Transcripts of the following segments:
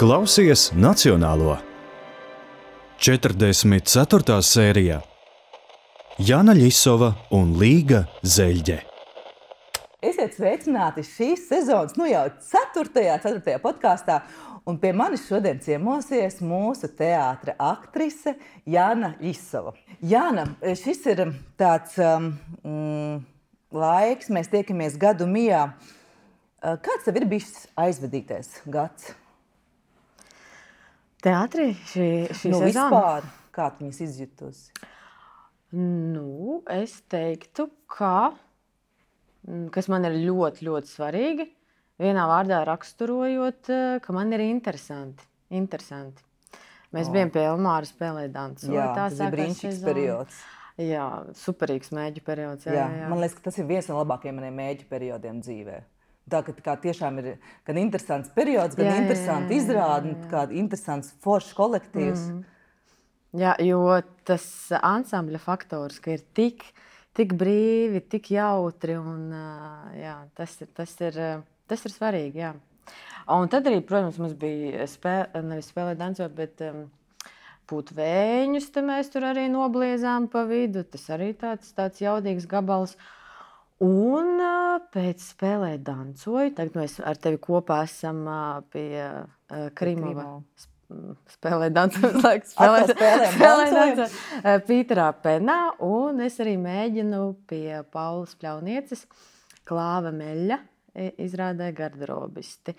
Klausies Nacionālo. 44. sērijā Jana Ļisova un Līga Zeļģe. Esiet sveicināti šīs sezonas, jau 4. podkāstā. Un pie manis šodien ciemosies mūsu teātra aktrise Jana Ļisova. Jana, šis ir tāds laiks, mēs tiekamies gadu mijā. Kāds tev ir bijis aizvadītais gads? Teātrī šī sezona? Vispār, kā tu viņas izjutusi? Es teiktu, kas man ir ļoti, ļoti svarīgi, vienā vārdā raksturojot, ka man ir interesanti. Mēs bijām pie Elmāra spēlēt dancu. Jā, tas ir brīnišķīgs periods. Jā, superīgs mēģu periods. Jā. Man liekas, ka tas ir viens no labākajiem maniem mēģu periodiem dzīvē. Tā kā tiešām ir gan interesants periods, gan interesanti izrādi, kā interesants foršs kolektīvs. Jā, jo tas ansambļa faktors, ka ir tik brīvi, tik jautri, un tas ir svarīgi, jā. Un tad arī, protams, mums bija nevis spēlēt dancot, bet pūt vēņus, te mēs tur arī nobliezām pa vidu. Tas arī tāds jaudīgs gabals. Un pēc spēlēt dancoju, tagad mēs ar tevi kopā esam pie Krimova spēlēt dancot, Pīterā Penā, un es arī mēģinu pie Paulas Pļaunieces Klāva Meļa izrādē garderobisti.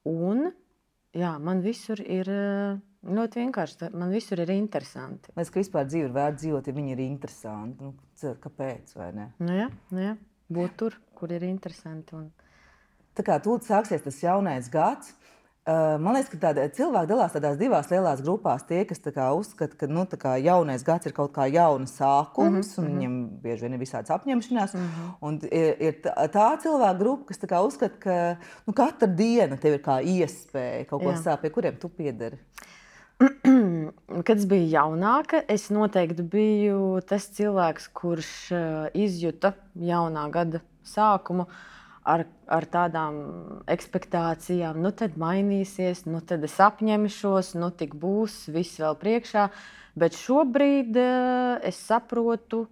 Un man visur ir ļoti vienkārši, man visur ir interesanti. Mēs, ka vispār dzīvi ir vērts dzīvot, ja viņi ir interesanti. Kāpēc, vai ne? Jā. Būt tur, kur ir interesanti. Tā kā tūlīt sāksies tas jaunais gads, man liekas, ka cilvēki dalās tādās divās lielās grupās. Tie, kas uzskata, ka jaunais gads ir kaut kā jauna sākums, un viņiem bieži vien ir visādas apņemšanās. Un ir tā cilvēka grupa, kas uzskata, ka katra diena tev ir kā iespēja kaut ko sākt, pie kuriem tu piederi. Kad es biju jaunāka, es noteikti biju tas cilvēks, kurš izjuta jaunā gada sākumu ar tādām ekspektācijām. Tad mainīsies, tad es apņemšos, tik būs, viss vēl priekšā. Bet šobrīd es saprotu,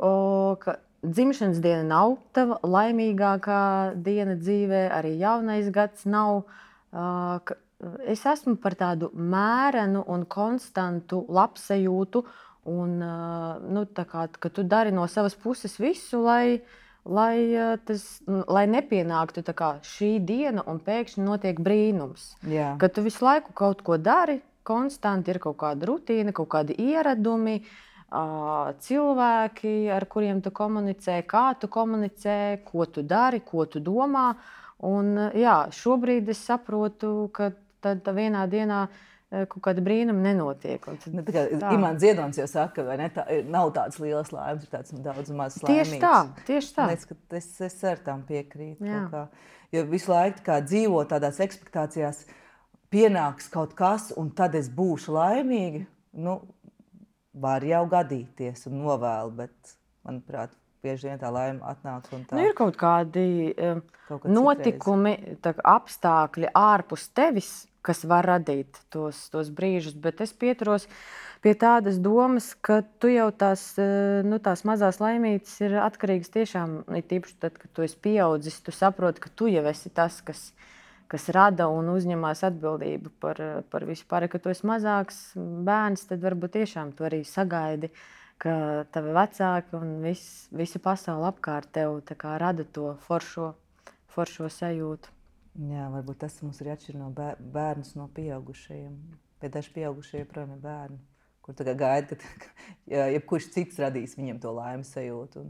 ka dzimšanas diena nav tava laimīgākā diena dzīvē, arī jaunais gads nav. Es esmu par tādu mērenu un konstantu labsajūtu, un ka tu dari no savas puses visu, lai nepienāktu šī diena un pēkšņi notiek brīnums. Jā. Ka tu visu laiku kaut ko dari, konstanti ir kaut kāda rutīna, kaut kādi ieradumi, cilvēki, ar kuriem tu komunicē, kā tu komunicē, ko tu dari, ko tu domā. Un, šobrīd es saprotu, ka tad vienā dienā kaut kāda brīnuma nenotiek. Imants Ziedonis jau saka, vai ne? Nav tādas lielas laimes, ir tāds daudz mazas laimīgas. Tieši tā. Es ar tām piekrītu. Jo visu laiku dzīvo tādās ekspektācijās, pienāks kaut kas, un tad es būšu laimīga. Var jau gadīties un novēlu, bet, manuprāt, bieži vien tā laime atnāk un tā. Ir kaut kādi notikumi, apstākļi ārpus tevis, kas var radīt tos brīžus, bet es pieturos pie tādas domas, ka tu jau tās mazās laimītes ir atkarīgas tiešām, tīpaši tad, kad tu esi pieaudzis, tu saproti, ka tu jau esi tas, kas rada un uzņemās atbildību par visu pārējo. Kad tu esi mazāks bērns, tad varbūt tiešām tu arī sagaidi, ka tavi vecāki un visa pasaule apkārt tev rada to foršo sajūtu. Jā, varbūt tas mums ir atšķir no bērnus no pieaugušajiem. Bet daži pieaugušie joprojām ir bērni, kur gaida, ka jebkurš cits radīs viņiem to laimes sajūtu.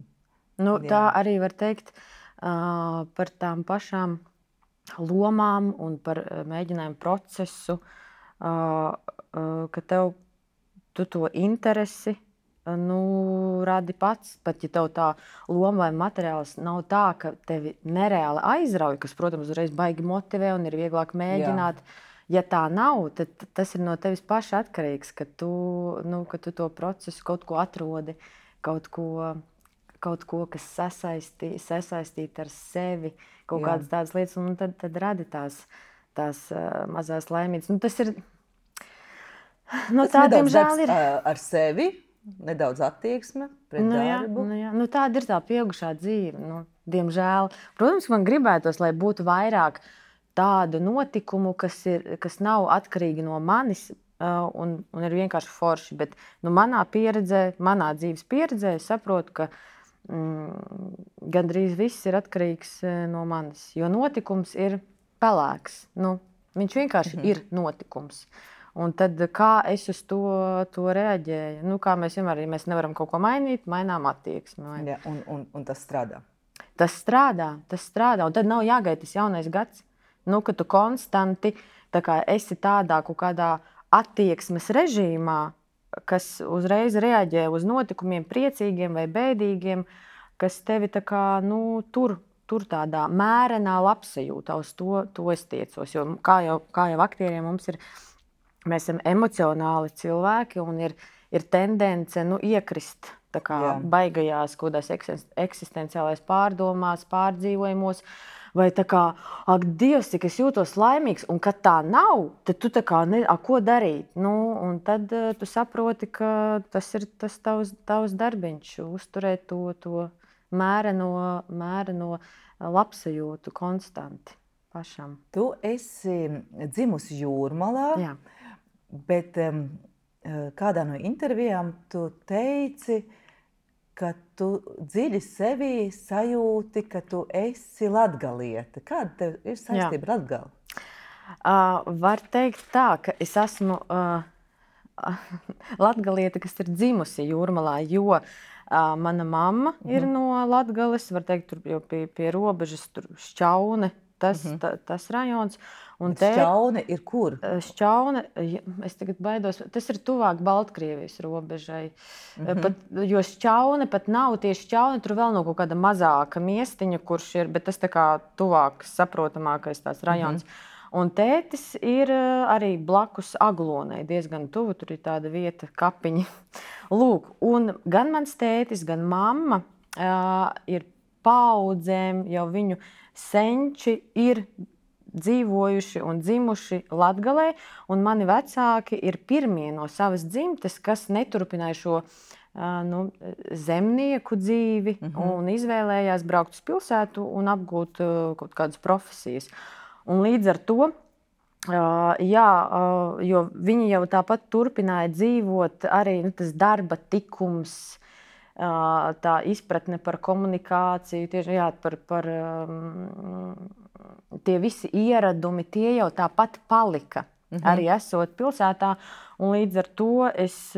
Tā arī var teikt par tām pašām lomām un par mēģinājumu procesu, ka tu to interesi radi pats, pat ja tev tā loma vai materiāls nav tā, ka tevi nereāli aizrauj, kas, protams, uzreiz baigi motivē un ir vieglāk mēģināt. Ja tā nav, tad tas ir no tevis paša atkarīgs, ka tu to procesu kaut ko atrodi, kaut ko, kas sasaistīt ar sevi, kaut kādas tādas lietas, un tad radi tās tās mazās laimītas. Nu, tas ir, no Tas tā, nedaudz diemžēl, darbs ir. ar sevi, nedaudz attieksme pret darbu. Nu, tāda ir tā pieaugušā dzīve. Nu, diemžēl. Protams, man gribētos, lai būtu vairāk tādu notikumu, kas nav atkarīgi no manis un ir vienkārši forši. Bet manā pieredzē, manā dzīves pieredzē, es saprotu, ka gandrīz viss ir atkarīgs no manis. Jo notikums ir pelēks. Nu, viņš vienkārši ir notikums. Un tad, kā es uz to reaģēju? Nu, kā mēs vienmēr, ja mēs nevaram kaut ko mainīt, mainām attieksmi. Ja, un tas strādā. Tas strādā. Un tad nav jāgaida tas jaunais gads. Nu, ka tu konstanti esi tādā kaut kādā attieksmes režīmā, kas uzreiz reaģē uz notikumiem, priecīgiem vai bēdīgiem, kas tevi tur tādā mērenā labsajūtā. Uz to es tiecos. Jo, kā jau aktieriem mums ir. Mēs esam emocionāli cilvēki un ir tendence iekrist baigajās kaut kādās eksistenciālās pārdomās, pārdzīvojumos. Vai ak, Dievs, cik es jūtos laimīgs, un kad tā nav, tad tu ko darīt? Nu, un tad tu saproti, ka tas ir tas tavs darbiņš, uzturēt to mēreno labsajūtu konstanti pašam. Tu esi dzimusi Jūrmalā. Jā. Bet kādā no intervijām tu teici, ka tu dziļi sevī sajūti, ka tu esi latgaliete. Kāda tev ir saistība ar Latgali? Var teikt tā, ka es esmu latgaliete, kas ir dzimusi Jūrmalā, jo mana mamma ir no Latgales, var teikt, tur jau pie robežas, tur Šķaune, tas rajons. Šķaune ir kur? Šķaune, es tagad baidos, tas ir tuvāk Baltkrievijas robežai. Jo Šķaune pat nav tieši Šķaune, tur vēl nav kaut kāda mazāka miestiņa, kurš ir, bet tas tuvāk saprotamākais tās rajons. Un tētis ir arī blakus Aglonai, diezgan tuvu, tur ir tāda vieta, kapiņi. Lūk, un gan mans tētis, gan mamma ir paaudzēm, jau viņu senči ir dzīvojuši un dzimuši Latgalē, un mani vecāki ir pirmie no savas dzimtes, kas neturpināja šo zemnieku dzīvi un izvēlējās braukt uz pilsētu un apgūt kaut kādas profesijas. Un līdz ar to, jo viņi jau tāpat turpināja dzīvot, arī tas darba tikums, tā izpratne par komunikāciju, tieši par tie visi ieradumi, tie jau tāpat palika, arī esot pilsētā. Un līdz ar to es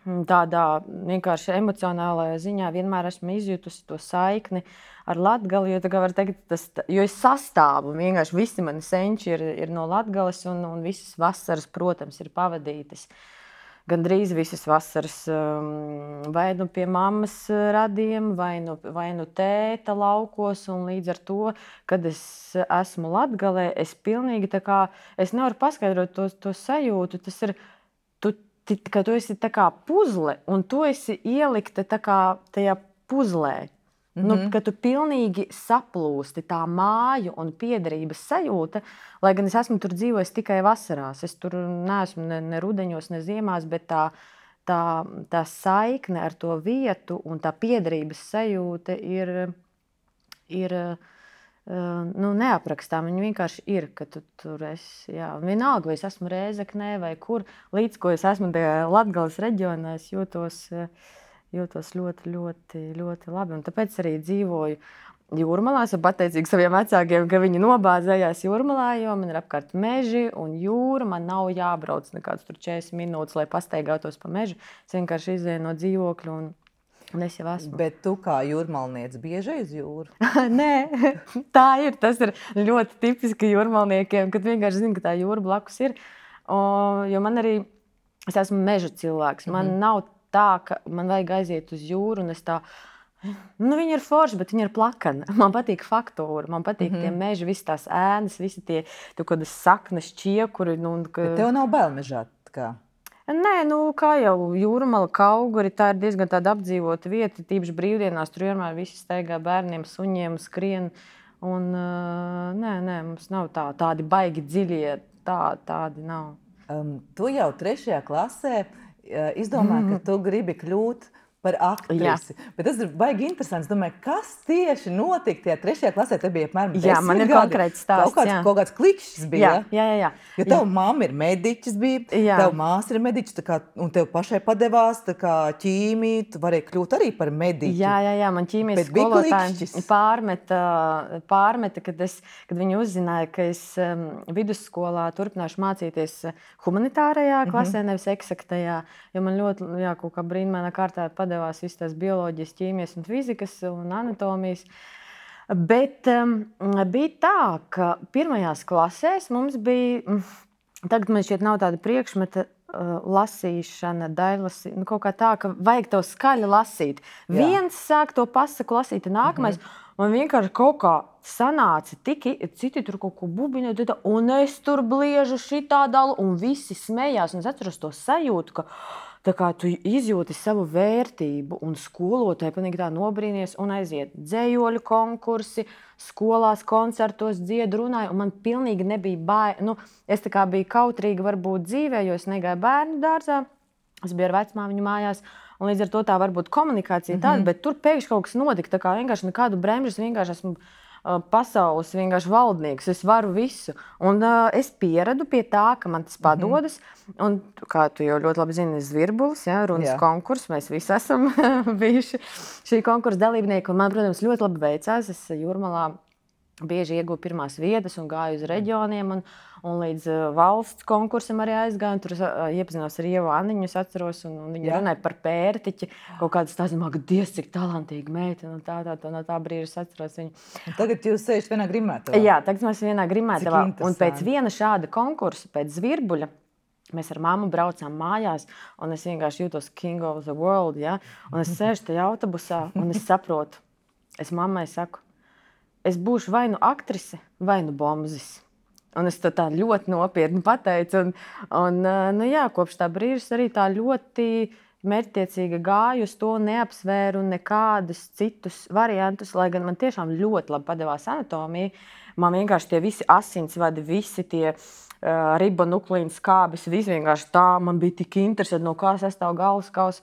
tādā vienkārši emocionālajā ziņā vienmēr esmu izjutusi to saikni ar Latgali, jo var teikt, jo es sastāvu, vienkārši visi mani senči ir no Latgales un visas vasaras, protams, ir pavadītas. Gandrīz visas vasaras vai pie mammas radiem, vai nu tēta laukos, un līdz ar to, kad es esmu Latgalē, es pilnīgi es nevaru paskaidrot to sajūtu, tas ir, ka tu esi puzle, un tu esi ielikta tajā puzlē. Ka tu pilnīgi saplūsti tā māju un piederības sajūta, lai gan es esmu tur dzīvojis tikai vasarās. Es tur neesmu ne rudeņos, ne ziemās, bet tā saikne ar to vietu un tā piederības sajūta ir neaprakstām. Viņa vienkārši ir, ka tu tur esi. Jā. Vienalga, vai es esmu Rēzeknē vai kur, līdz ko es esmu tajā Latgales reģionā, es jūtos ļoti, ļoti, ļoti labi. Un tāpēc arī dzīvoju Jūrmalā. Esmu pateicīga saviem vecākiem, ka viņi nobāzējās Jūrmalā, jo man ir apkārt meži un jūra. Man nav jābrauc nekāds 40 minūtes, lai pastaigātos pa mežu. Es vienkārši izēju no dzīvokļa un es jau esmu. Bet tu kā jūrmalniece bieži uz jūru? Nē, tā ir. Tas ir ļoti tipiski jūrmalniekiem, kad vienkārši zinu, ka tā jūra blakus ir. Jo man arī, es esmu meža cilvēks. Man nav tā, ka man vajag aiziet uz jūru, un es viņi ir forši, bet viņi ir plakani. Man patīk faktūra, man patīk tie meži, visas tās ēnas, visi tie kādas saknes, čiekuri. Bet tev nav bail mežā? Nē, kā jau Jūrmala, Kauguri, tā ir diezgan tāda apdzīvota vieta, tīpaši brīvdienās, tur vienmēr visi staigā bērniem, suņiem, skrien. Un, nē, mums nav tādi baigi dziļie, tādi nav. Tu jau 3. klasē izdomāji, ka tu gribi kļūt par aktrisi. Bet tas ir baigi interesants. Domāju, kas tieši notika tajā 3. klasē? Te bija apmēram 10 man ir gadi. konkrēts stāsts. Kaut kāds klikšķis bija. Jā. Jo tev mamma ir mediķis bija, tev māsa ir mediķis, un tev pašai padevās ķīmija, tu varēji kļūt arī par mediķi. Jā, man ķīmijas skolotāji pārmeta, kad viņi uzzināja, ka es vidusskolā turpināšu mācīties humanitārajā klasē, nevis eksaktajā, jo man ļoti, kaut kā brīnumainā kārtā padevās visas tās bioloģijas, ķīmijas un fizikas un anatomijas. Bet bija tā, ka pirmajās klasēs mums bija, tagad man šķiet nav tāda priekšmeta, lasīšana, daļlasīšana, kaut kā tā, ka vajag tev skaļi lasīt. Viens sāk to pasaku lasīt, nākamais, un vienkārši kaut kā sanāca, citi tur kaut ko bubiņo, un es tur bliežu šitā dalu, un visi smējās, un es atceros to sajūtu, ka tā kā tu izjūti savu vērtību, un skolotāji pilnīgi tā nobrīnies un aiziet dzejoļu konkursi, skolās, koncertos dziedu, runāju, un man pilnīgi nebija bail. Es tā kā biju kautrīga varbūt dzīvē, jo es negāju bērnu dārzā, es biju ar vecmāmiņu mājās, un līdz ar to tā varbūt komunikācija tāda, bet tur pēkšņi kaut kas notika, tā kā vienkārši nekādu bremžas, vienkārši esmu pasaules vienkārši valdnieks, es varu visu. Un es pieradu pie tā, ka man tas padodas. Un, kā tu jau ļoti labi zini, Zvirbulis, runas konkurss, mēs visi esam bijuši šī konkursa dalībnieki. Un man, protams, ļoti labi veicās. Es Jūrmalā bieži ieguvu pirmās vietas un gāju uz reģioniem. Un līdz valsts konkursam arī aizgāju. Tur iepazinos ar Ievu Anniņu, es atceros, un viņa runāja par pērtiķi. Kaut kādas tās, Dievs, cik talantīga meita. No tā brīža es atceros viņu. Un tagad jūs sēžat vienā grimētavā? Jā, tagad mēs vienā grimētavā. Un pēc viena šāda konkursa, pēc Zvirbuļa, mēs ar mammu braucām mājās, un es vienkārši jūtos king of the world. Ja? Un es sēžu tajā autobusā, un es saprotu. Es mammai saku, es būšu vai nu aktrise, vai nu bombzis. Un es to tā ļoti nopietni pateicu. Kopš tā brīža arī tā ļoti mērķtiecīgi gāju uz to, neapsvēru nekādus citus variantus, lai gan man tiešām ļoti labi padevās anatomija. Man vienkārši tie visi asinsvadi, visi tie ribonuklīnu skābes, viss vienkārši tā, man bija tik interesanti, no kā sastāv galvaskaus.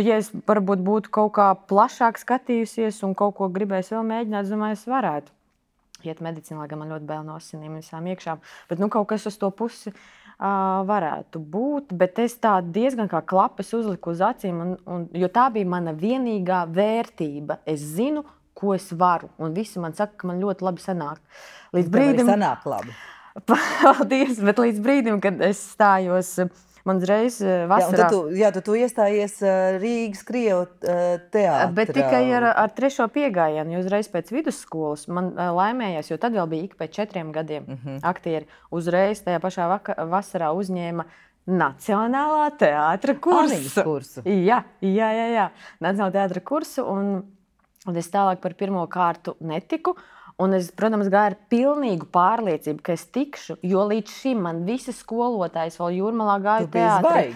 Ja es varbūt būtu kaut kā plašāk skatījusies un kaut ko gribējis vēl mēģināt, es domāju, es varētu iet medicīnā, lai gan man ļoti bail no asinīm visām iekšām. Bet kaut kas uz to pusi varētu būt. Bet es tā diezgan kā klapes uzliku uz acīm, jo tā bija mana vienīgā vērtība. Es zinu, ko es varu. Un visi man saka, ka man ļoti labi sanāk. Līdz brīdim, sanāk labi. Paldies, bet līdz brīdim, kad es stājos, man uzreiz vasarā. Tu iestājies Rīgas Krievu teātrā. Bet tikai ar 3. piegājienu, jo uzreiz pēc vidusskolas man laimējās, jo tad vēl bija ik pēc 4 gadiem aktieri. Uzreiz tajā pašā vasarā uzņēma Nacionālā teātra kursu. Jā. Nacionālā teātra kursu, un es tālāk par pirmo kārtu netiku. Un es, protams, gāju ar pilnīgu pārliecību, ka es tikšu, jo līdz šim man visi skolotājs vēl Jūrmalā gāja teātrī.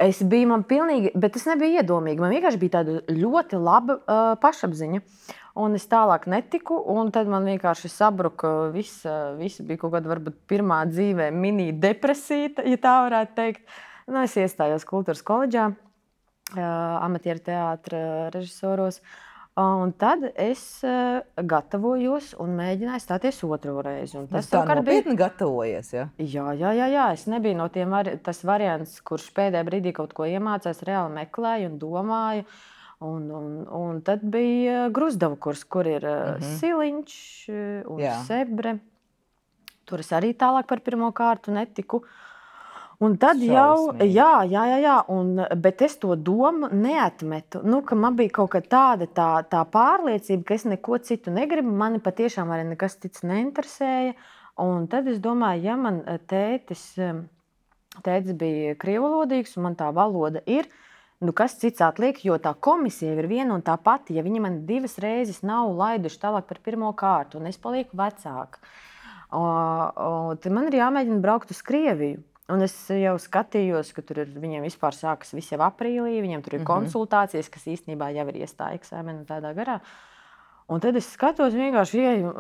Es biju man pilnīgi, bet tas nebija iedomīgi. Man vienkārši bija tāda ļoti laba pašapziņa. Un es tālāk netiku, un tad man vienkārši sabruka viss bija kaut kāda varbūt pirmā dzīvē mini depresija, ja tā varētu teikt. Es iestājos kultūras koledžā, amatieru teātra režisoros. Un tad es gatavojos un mēģināju stāties otro reizi. Tas tā nopietni gatavojies, ja? Jā. Es nebiju no tiem tas variants, kurš pēdējā brīdī kaut ko iemācās, reāli meklēju un domāju. Un tad bija Gruzdavu kurs, kur ir Siliņš un Sebre. Tur es arī tālāk par pirmo kārtu netiku. Un tad bet es to domu neatmetu, ka man bija kaut kā tāda tā pārliecība, ka es neko citu negribu, mani patiešām arī nekas cits neinteresēja. Un tad es domāju, ja man tētis bija krievvalodīgs un man tā valoda ir, kas cits atliek, jo tā komisija ir viena un tā pati, ja viņi man 2 reizes nav laiduši tālāk par pirmo kārtu un es palieku vecāka. Tad man ir jāmēģina braukt uz Krieviju. Un es jau skatījos, ka tur viņiem vispār sākas viss jau aprīlī, viņiem tur ir konsultācijas, kas īstenībā jau ir iestāja eksāmenu tādā garā. Un tad es skatos, vienkārši ieju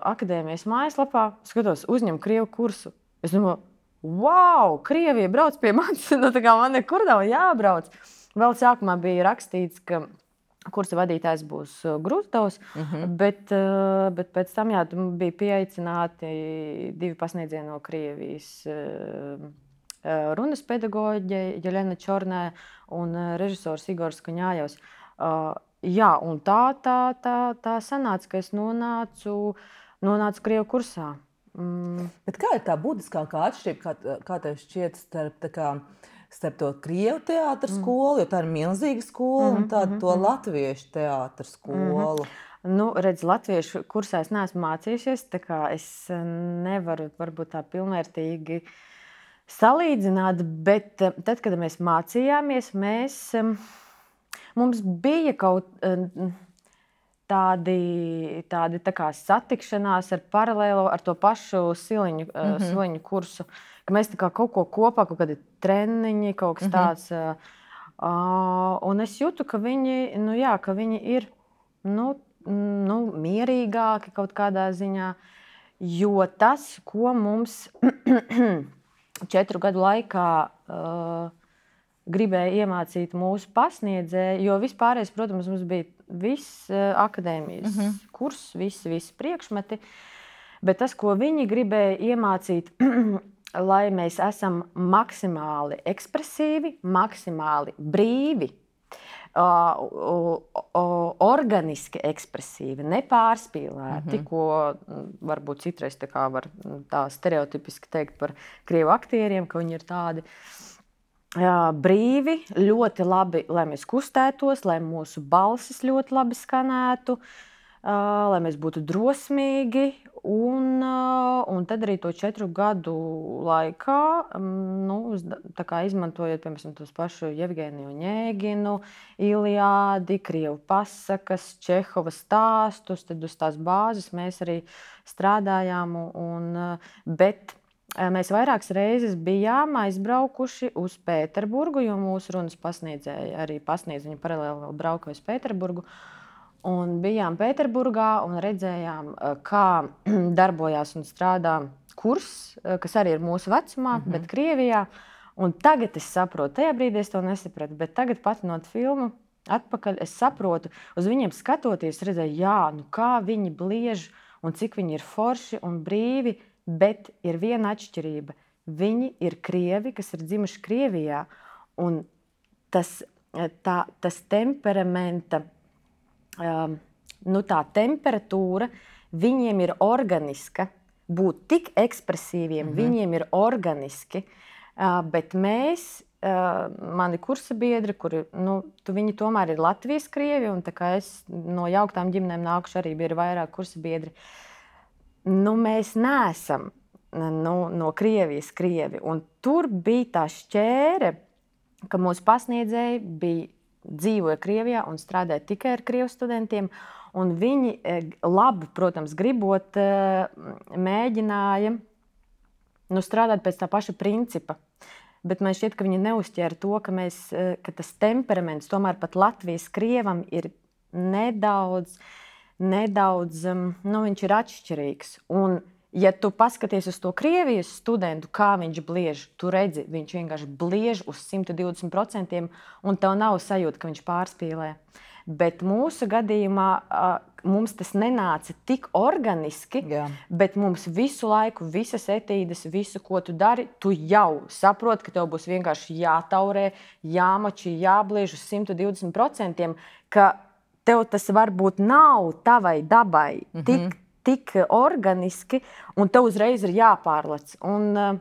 akadēmijas mājaslapā, skatos, uzņem krievu kursu. Es domāju, wow, Krievija brauc pie manis, nu tā kā man nekur nav jābrauc. Vēl sākumā bija rakstīts, ka kursa vadītājs būs Grūzdovs, bet pēc tam bija pieaicināti 2 pasniedzieni no Krievijas runas pedagoģe Jeļena Čornē un režisors Igors Kuņājevs. Jā, un tā sanāca, ka es nonācu krievu kursā. Bet kā ir tā būtiskākā atšķirība, kā tev šķiet starp to krievu teātra skolu, jo tā ir milzīga skola, un to latviešu teātra skolu? Nu, redz, latviešu kursā es neesmu mācījušies, tā kā es nevaru varbūt tā pilnvērtīgi salīdzināt, bet tad, kad mēs mācījāmies, mums bija kaut tādi tā kā satikšanās ar paralēlo ar to pašu Siliņu kursu, ka mēs tā kā kaut ko kopā, kaut kādi treniņi, kaut kas tāds. Un es jūtu, ka viņi ir mierīgāki kaut kādā ziņā, jo tas, ko mums 4 gadu laikā gribēja iemācīt mūsu pasniedzēji, jo vispārējais, protams, mums bija viss akadēmijas kurs, visi priekšmeti, bet tas, ko viņi gribēja iemācīt, lai mēs esam maksimāli ekspresīvi, maksimāli brīvi, organiski ekspresīvi, nepārspīlēti, ko varbūt citreiz var tā stereotipiski teikt par krievu aktieriem, ka viņi ir tādi brīvi, ļoti labi, lai mēs kustētos, lai mūsu balsis ļoti labi skanētu, lai mēs būtu drosmīgi. Un tad arī to 4 gadu laikā, tā kā izmantojot, piemēram, tos pašu Jevgeniju Oņēginu, Iliādi, krievu pasakas, Čehova stāstus, tad uz tās bāzes mēs arī strādājām. Bet mēs vairākas reizes bijām aizbraukuši uz Pēterburgu, jo mūsu runas pasniedzēji arī pasniedz, viņi paralēli vēl brauka uz Pēterburgu. Un bijām Pēterburgā un redzējām, kā darbojās un strādā kurs, kas arī ir mūsu vecumā, bet Krievijā. Un tagad es saprotu, tajā brīdī es to nesapratu, bet tagad patinot filmu atpakaļ, es saprotu, uz viņiem skatoties, redzēju, kā viņi bliež un cik viņi ir forši un brīvi, bet ir viena atšķirība. Viņi ir krievi, kas ir dzimuši Krievijā, un tas temperamenta, tā temperatūra viņiem ir organiska, būt tik ekspresīviem, viņiem ir organiski, bet mēs, mani kursa biedri, kuri, viņi tomēr ir Latvijas krievi, un tā kā es no jauktām ģimenēm nākuši, arī bija vairāk kursa biedri, mēs neesam no Krievijas krievi, un tur bija tā šķēre, ka mūsu pasniedzēji dzīvoja Krievijā un strādāja tikai ar krievu studentiem, un viņi labi, protams, gribot, mēģināja strādāt pēc tā paša principa. Bet man šķiet, ka viņi neuzķēra to, ka tas temperaments tomēr pat Latvijas krievam ir nedaudz, viņš ir atšķirīgs. Un ja tu paskaties uz to Krievijas studentu, kā viņš bliež, tu redzi, viņš vienkārši bliež uz 120%, un tev nav sajūta, ka viņš pārspīlē. Bet mūsu gadījumā mums tas nenāca tik organiski, bet mums visu laiku, visas etīdes, visu, ko tu dari, tu jau saproti, ka tev būs vienkārši jātaurē, jāmači, jābliež uz 120%, ka tev tas varbūt nav tavai dabai tik organiski, un tev uzreiz ir jāpārlec. Un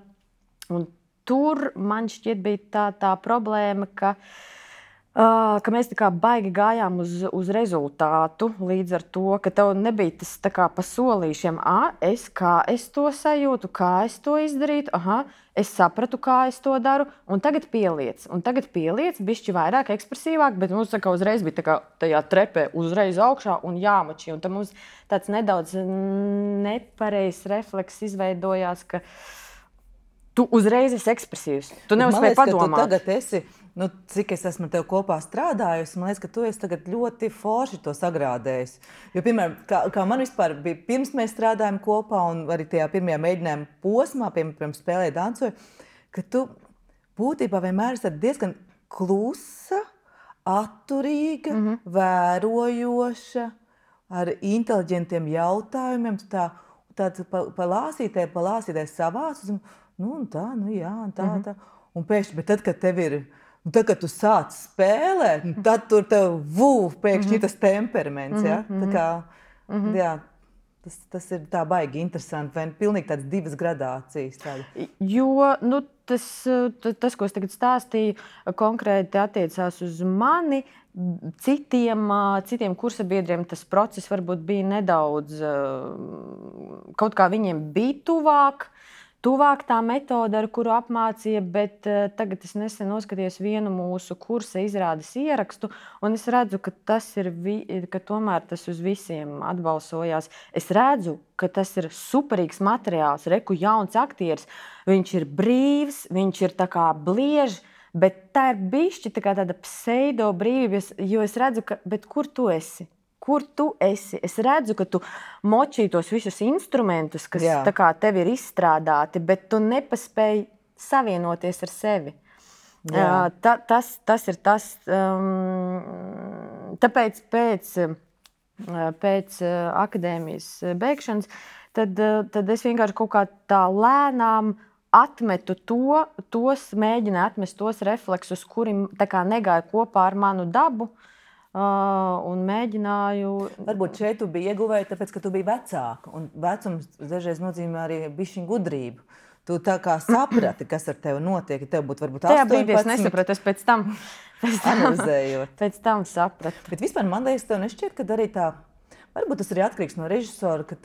tur man šķiet bija tā problēma, ka mēs tā kā baigi gājām uz rezultātu, līdz ar to, ka tev nebija tas tā kā pa solīšiem, kā es to sajūtu, kā es to izdarītu, es sapratu, kā es to daru, un tagad pieliec, bišķi vairāk ekspresīvāk, bet mums tā kā uzreiz bija tā kā tajā trepē uzreiz augšā un jāmači, un tad mums tāds nedaudz nepareizs refleks izveidojās, ka tu uzreiz esi ekspresīvs, tu neuzspēji padomāt. Tu tagad esi nu, cik es esmu ar tevi kopā strādājusi, man liekas, ka tu esi tagad ļoti forši to sagrādējis. Jo, piemēram, kā man vispār bija, pirms mēs strādājām kopā un arī tajā pirmajā mēģinājuma posmā, piemēram, spēlēja dancoju, ka tu būtībā vienmēr esi diezgan klusa, atturīga, vērojoša, ar inteliģentiem jautājumiem. Tā palāsītē savās, un tā, tā. Un pēkšņi, bet tad, kad tev ir, tad, kad tu sāc spēlēt, tad tur tev pēkšņi tas temperaments, ja? Tā kā, jā. Tas ir tā baigi interesanti, vai pilnīgi tādas divas gradācijas. Tāda. Jo tas, ko es tagad stāstīju, konkrēti attiecās uz mani. Citiem kursabiedriem tas process varbūt bija nedaudz, kaut kā viņiem bija tuvāk tā metode, ar kuru apmācīja, bet tagad es nesen noskatījos vienu mūsu kursa izrādes ierakstu, un es redzu, ka ka tomēr tas uz visiem atbalsojās. Es redzu, ka tas ir superīgs materiāls, jauns aktieris, viņš ir brīvs, viņš ir tā kā bliež, bet tā ir bišķi tāda pseido brīvība, jo es redzu, bet kur tu esi? Kur tu esi? Es redzu, ka tu močī tos visus instrumentus, kas tā kā tev ir izstrādāti, bet tu nepaspēji savienoties ar sevi. Tas ir tas. Tāpēc pēc akadēmijas beigšanas tad es vienkārši kaut kā tā lēnām atmetu mēģināju atmest tos refleksus, kuri tā kā negāja kopā ar manu dabu. Un mēģināju. Varbūt šeit tu biji ieguvēja, tāpēc, ka tu biji vecāka. Un vecums dažreiz nozīmē arī bišķiņu gudrību. Tu tā kā saprati, kas ar tevi notiek. Tev būtu varbūt 18. Tajā brīdī es nesapratu, es pēc tam analizējot. Pēc tam sapratu. Bet vispār man liekas, tev nešķiet, ka arī tā, varbūt tas arī atkarīgs no režisora, ka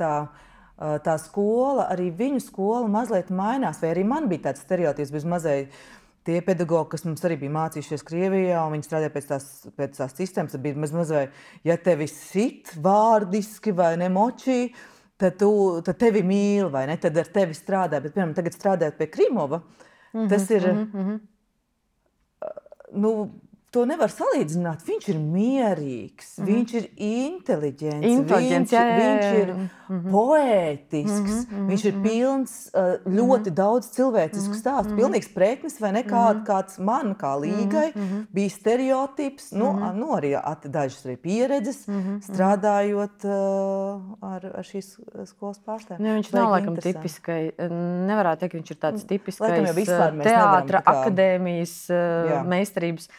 tā skola, arī viņu skola mazliet mainās. Vai arī man bija tāds stereotips bez mazliet. Tie pedagogi, kas mums arī bija mācījušies Krievijā, un viņi strādāja pēc tās sistēmas, tad bija mazliet, ja tevi sit vārdiski vai nemočī, tad tevi mīl, vai ne? Tad ar tevi strādā. Bet, piemēram, tagad strādājot pie Krimova, tas ir, to nevar salīdzināt. Viņš ir mierīgs, viņš ir inteliģents, viņš ir poētisks, viņš ir pilns ļoti daudz cilvēcisku stāstu. Pilnīgs preknis vai ne kāds man, kā Līgai, bija stereotips, arī dažas arī pieredzes, strādājot ar šīs skolas pārstāvjiem. Viņš nav laikam tipiskai, nevarētu teikt, viņš ir tāds tipiskais teātra akadēmijas meistarības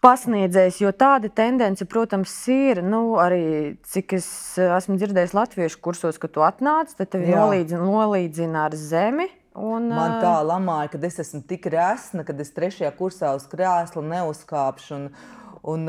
pasniedzējs, jo tāda tendence, protams, ir, arī cik es esmu dzirdējis latviešu kursos, ka tu atnāc, tad tevi nolīdzina ar zemi. Man tā lamāja, kad es esmu tik resna, kad es 3. kursā uz krēsla neuzkāpšu un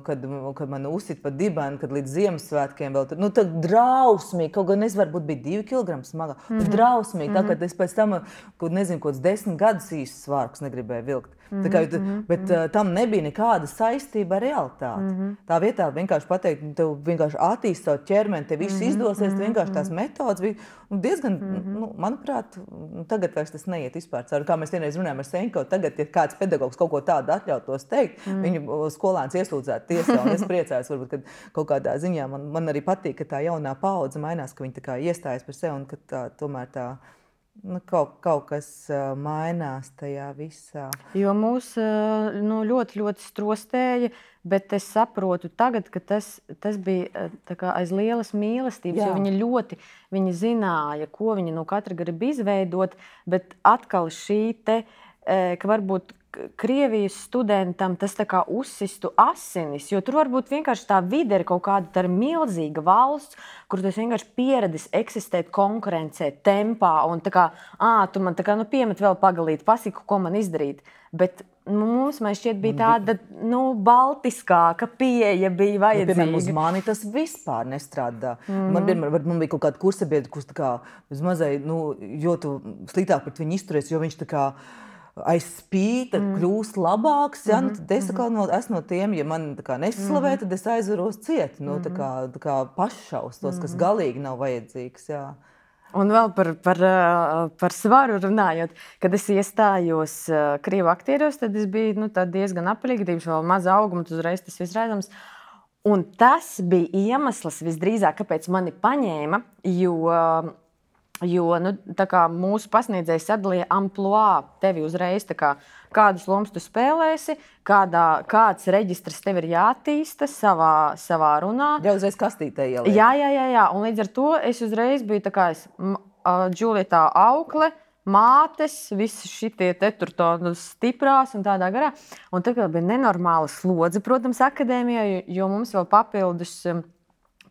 kad man uzsit pa dibenu, kad līdz Ziemassvētkiem vēl tur, tad drausmīgi, kaut gan es varbūt biju 2 kg smaga, drausmīgi, tā, kad es pēc tam, nezinu, kaut 10 gadus īsti svārkus negribēju vilkt. Bet tam nebija nekāda saistība ar realitāti. Tā vietā vienkārši pateikt, tev vienkārši attīst savu ķermeni, tev viss izdosies, vienkārši tās metodas bija diezgan, manuprāt, tagad vairs tas neiet vispār cauri. Kā mēs vienreiz runājam ar Senko, tagad, ja kāds pedagogs kaut ko tādu atļautos teikt, viņu skolēns iesūdzētu tiesā, un es priecājos, varbūt, ka kaut kādā ziņā man arī patīk, ka tā jaunā paudze mainās, ka viņi tā kā iestājas par sevi un ka tomēr tā kaut kas mainās tajā visā. Jo mūs ļoti, ļoti strostēja, bet es saprotu tagad, ka tas bija tā kā aiz lielas mīlestības, jo viņi zināja, ko viņi no katra grib izveidot, bet atkal šī ka varbūt Krievijas studentam tas tā kā uzsistu asinis, jo tur varbūt vienkārši tā vide ir kaut kāda, tā ir milzīga valsts, kur tu esi vienkārši pieredzis eksistēt konkurencē, tempā, un tā kā, tu man tā kā, piemet vēl pagalīt, pasiku, ko man izdarīt. Bet mums, man šķiet, bija tāda, baltiskāka pieeja bija vajadzīga. Piemēram, uz mani tas vispār nestrādā. Man bija kaut kāda kursabiedra, kurš tā kā, jo tu sliktāk pret viņu izturies, jo viņš tā kā aiz spīta kļūst labāks, tad es esmu no tiem, ja man neslavē, tad es aizvaros ciet, tā kā paššaustos, kas galīgi nav vajadzīgs, Un vēl par svaru runājot, kad es iestājos krievu aktieros, tad es biju diezgan apelīga, vēl maza auguma, uzreiz tas viss redzams. Un tas bija iemesls visdrīzāk, kāpēc mani paņēma, jo mūsu pasniedzējs sadalīja amplua tevi uzreiz, kādas lomas tu spēlēsi, kāds reģistrs tev ir jātīsta savā runā. Jau uzreiz kastītē ieliek. Jā, un līdz ar to es uzreiz biju Džulietā aukle, mātes, visi šitie tur stiprās un tādā garā. Un tagad bija nenormāla slodze, protams, akadēmijā, jo mums vēl papildus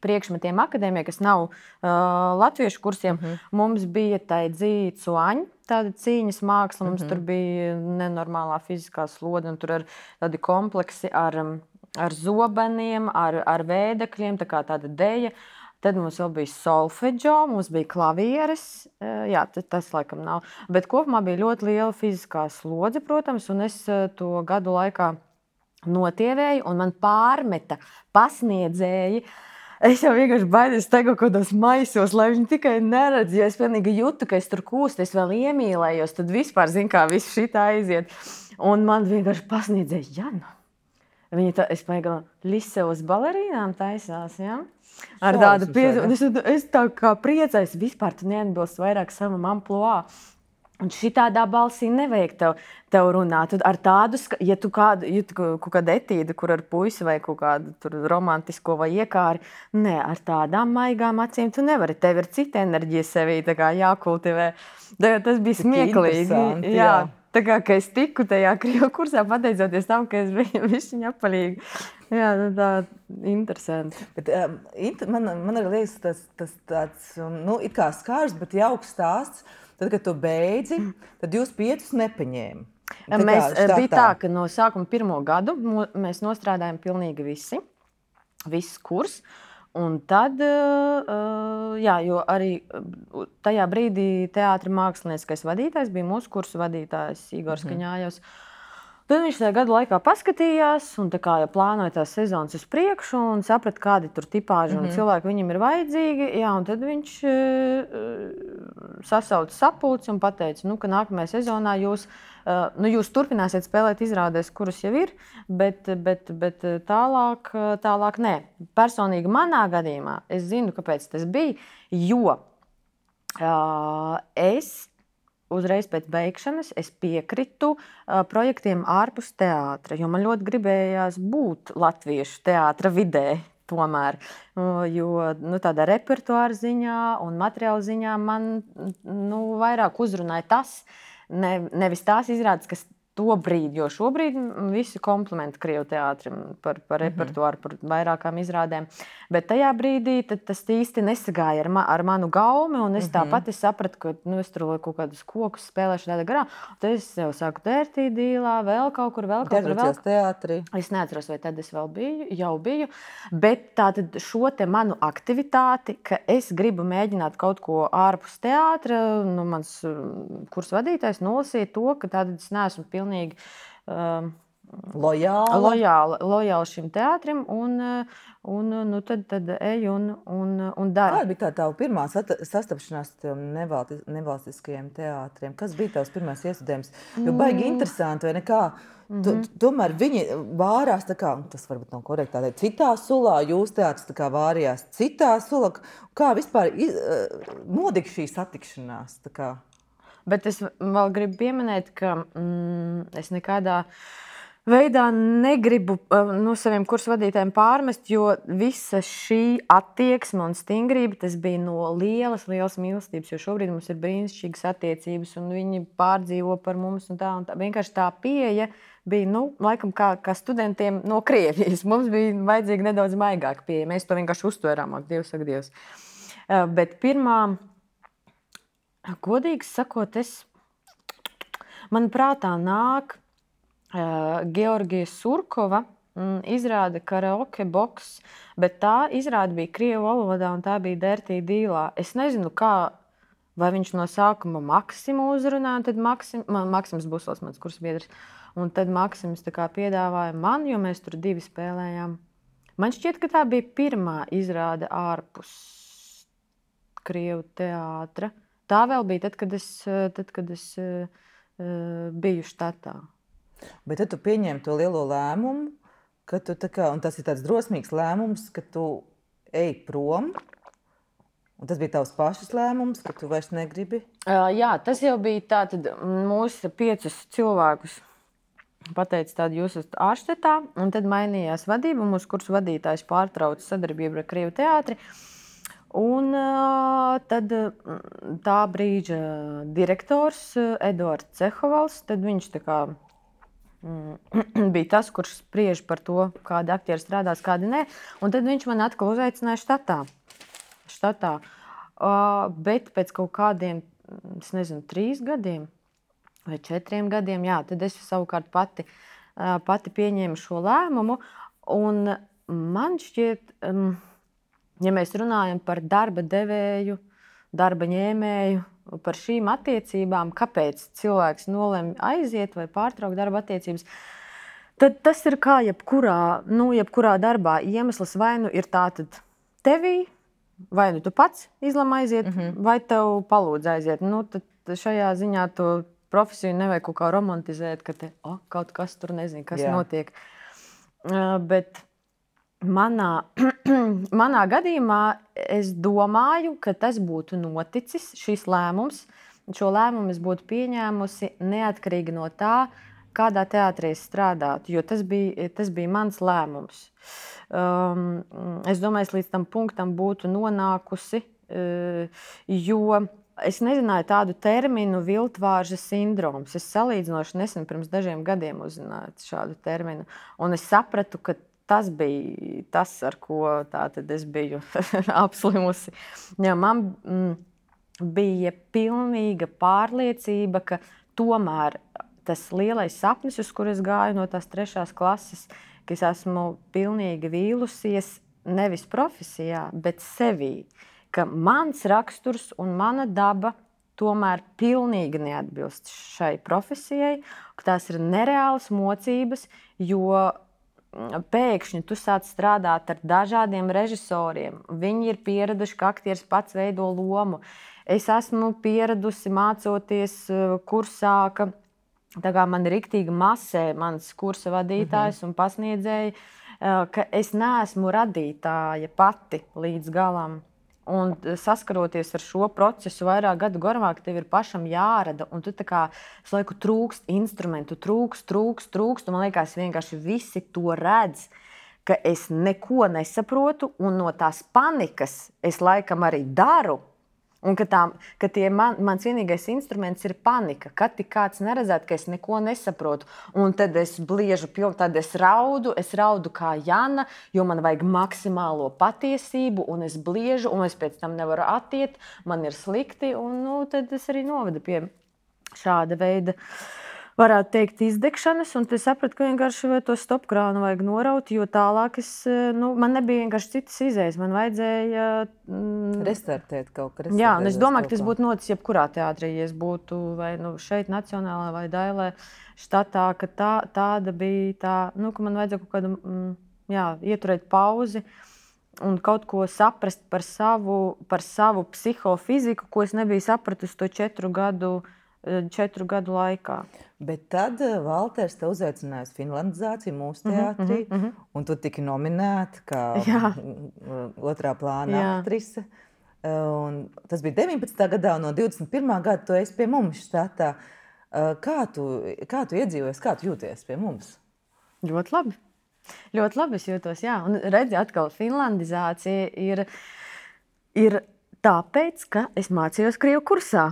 priekšmetiem akadēmijā, kas nav latviešu kursiem, mums bija dzīcu aņa, tāda cīņas māksla, mums tur bija nenormālā fiziskā slode, un tur ir tādi kompleksi ar zobeniem, ar vēdekļiem, tāda deja. Tad mums vēl bija solfeģo, mums bija klavieres, jā, tas laikam nav. Bet kopumā bija ļoti liela fiziskā slodze, protams, un es to gadu laikā notievēju, un man pārmeta pasniedzēji. Es jau vienkārši baidos tagad kaut kādos maisos, lai viņi tikai neredz, jo es pilnīgi jūtu, ka es tur kūstu, es vēl iemīlējos, tad vispār zinu, kā viss šitā aiziet. Un man vienkārši pasniedzēja, Jana. Viņa es paigala Lisevas balerīnām taisās, jā? Ar tādu piezīmi. Es tā kā priecājos, vispār tu neatbilst vairāk savam amplua. Un šitādā balsī nevajag tev runāt. Ar tādu, ja tu kaut kādu etīdu, kur ar puisi vai kaut kādu romantisko vai iekāri, ne, ar tādām maigām acīm tu nevari. Tev ir cita enerģija sevī jākultivē. Tas bija smieklīgi. Jā. Tā kā es tiku tajā krievu kursā, pateicoties tam, ka es biju višķiņa apalīga. Jā, tā interesanti. Bet, man arī liekas tas tāds, it kā skārs, bet jauks stāsts. Tad, kad tu beidzi, tad jūs 5 nepaņēma. Bija tā, ka no sākuma 1. gadu mēs nostrādājam pilnīgi viss kurs. Un tad, jo arī tajā brīdī teātra mākslinieckais vadītājs bija mūsu kursu vadītājs Igors Kaņājos. Tad viņš tajā gadu laikā paskatījās un plānoja tās sezonas uz priekšu un saprata, kādi tur tipāži un cilvēki viņam ir vajadzīgi. Jā, un tad viņš sasauca sapulci un pateica, ka nākamajā sezonā jūs turpināsiet spēlēt izrādēs, kuras jau ir, bet tālāk nē. Personīgi manā gadījumā es zinu, kāpēc tas bija, jo es uzreiz pēc beigšanas es piekritu projektiem ārpus teātra, jo man ļoti gribējās būt latviešu teātra vidē tomēr. Jo tādā repertuāra ziņā un materiāla ziņā man vairāk uzrunāja tas, nevis tās izrādes, kas to brīdi, jo šobrīd visi komplimenti krievu teātrim par repertuāru, par vairākām izrādēm. Bet tajā brīdī tas īsti nesagāja ar manu gaumi, un es tāpat sapratu, ka es tur kaut kādus kokus spēlēšu tādā garā. Tad es jau sāku Dērtī dīlā, vēl kaut kur. Teātrī. Es neatceros, vai tad es jau biju. Bet tātad šo te manu aktivitāti, ka es gribu mēģināt kaut ko ārpus teātra, mans kursu vadītājs nolasīja to, ka tātad es neesmu pilnīgi lojāli šim teātrim un tad eju un daru. Kāda bija tā tava pirmā sastapšanās ar nevalstiskajiem teātriem? Kas bija tavs pirmais iestudējums? Jo baigi interesanti, vai nekā? Tomēr viņi vārās, tas varbūt nav korekti, citā sulā, jūs teātris vārījās citā sulā. Kā vispār notika šī satikšanās? Bet es vēl gribu pieminēt, ka es nekādā veidā negribu saviem kursu vadītājiem pārmest, jo visa šī attieksme un stingrība, tas bija no lielas mīlestības, jo šobrīd mums ir brīnišķīgas attiecības un viņi pārdzīvo par mums un tā. Vienkārši tā pieeja bija, laikam kā studentiem no Krievijas. Mums bija vajadzīga nedaudz maigāka pieeja. Mēs to vienkārši uztvērām, Dievs. Bet pirmā, godīgi sakot, man prātā nāk Georgija Surkova izrāde Karaoke boks, bet tā izrāde bija krievu valodā un tā bija Dērtī dīlā. Es nezinu, vai viņš no sākuma Maksimu uzrunāja, tad Maksims Busls, mans kursbiedrs, un tad Maksims piedāvāja man, jo mēs tur 2 spēlējām. Man šķiet, ka tā bija pirmā izrāde ārpus Krievu teātra. Tā vēl bija tad, kad es biju štatā. Bet tad tu pieņēmi to lielo lēmumu, ka tu un tas ir tāds drosmīgs lēmums, ka tu ej prom. Un tas bija tavs pašas lēmums, ka tu vairs negribi? Jā, tas jau bija tātad mūsu 5 cilvēkus. Pateica tādu, jūs esat ārštatā, un tad mainījās vadība. Mūsu kursu vadītājs pārtrauca sadarbību ar Krievu teātri. Un tad tā brīža direktors Eduards Cehovals, tad viņš tā kā bija tas, kurš spriež par to, kādi aktieri strādās, kādi nē. Un tad viņš man atkal uzaicināja štatā. Bet pēc kaut kādiem, es nezinu, 3 gadiem vai 4 gadiem, jā, tad es savukārt pati pieņēmu šo lēmumu. Un man šķiet, ja mēs runājam par darba devēju, darba ņēmēju, par šīm attiecībām, kāpēc cilvēks nolemj aiziet vai pārtraukt darba attiecības, tad tas ir kā jebkurā darbā. Iemesls vai nu ir tātad tevī, vai nu tu pats izlem aiziet, vai tev palūdz aiziet. Tad šajā ziņā to profesiju nevajag kaut kā romantizēt, ka kaut kas tur nezinu, kas notiek. Bet manā gadījumā es domāju, ka tas būtu noticis, šis lēmums. Šo lēmumu es būtu pieņēmusi neatkarīgi no tā, kādā teātrī es strādātu, jo tas bija mans lēmums. Es domāju, es līdz tam punktam būtu nonākusi, jo es nezināju tādu terminu viltvārža sindroms. Es salīdzinoši nesen pirms dažiem gadiem uzzināju šādu terminu. Un es sapratu, ka tas bija tas, ar ko tātad es biju apslimusi. Ja man bija pilnīga pārliecība, ka tomēr tas lielais sapnis, uz kur es gāju no tās 3. klases, ka es esmu pilnīgi vīlusies nevis profesijā, bet sevī. Ka mans raksturs un mana daba tomēr pilnīgi neatbilst šai profesijai, ka tās ir nereālas mocības, jo pēkšņi tu sāc strādāt ar dažādiem režisoriem. Viņi ir pieraduši, ka aktieris pats veido lomu. Es esmu pieradusi mācoties kursā, tā kā man riktīgi masē mans kursa vadītājs un pasniedzēji, ka es neesmu radītāja pati līdz galam. Un saskaroties ar šo procesu vairāk gadu garumā, ka tev ir pašam jārada, un tu tā kā visu laiku trūkst instrumentu, trūkst, un man liekas, vienkārši visi to redz, ka es neko nesaprotu, un no tās panikas es laikam arī daru. Un ka mans vienīgais instruments ir panika, kad tik kāds neredzētu, ka es neko nesaprotu. Un tad es bliežu, tad es raudu kā Jana, jo man vajag maksimālo patiesību, un es bliežu, un es pēc tam nevaru attiet, man ir slikti, un tad es arī novedu pie šāda veida, varētu teikt, izdegšanas, un es sapratu, ka vienkārši to stopkrānu vajag noraut, jo tālāk man nebija vienkārši citas izējas, man vajadzēja restartēt kaut kā. Jā, un es domāju, ka tas būtu noticis jebkurā teātrī, ja es būtu vai šeit Nacionālā vai Dailē štatā, ka tāda bija tā, ka man vajadzēja kaut kādu, ieturēt pauzi un kaut ko saprast par savu psihofiziku, ko es nebiju sapratusi to 4 gadu laikā. Bet tad Valters te uzaicināja uz finlandizāciju mūsu teātrī, un tu tiki nominēta kā otrā plāna aktrise. Un tas bija 19. gadā, un no 21. gada tu esi pie mums štatā. Kā tu iedzīvojies, kā tu jūties pie mums? Ļoti labi. Ļoti labi es jūtos, jā. Un redzi, atkal finlandizācija ir tāpēc, ka es mācījos krievu kursā.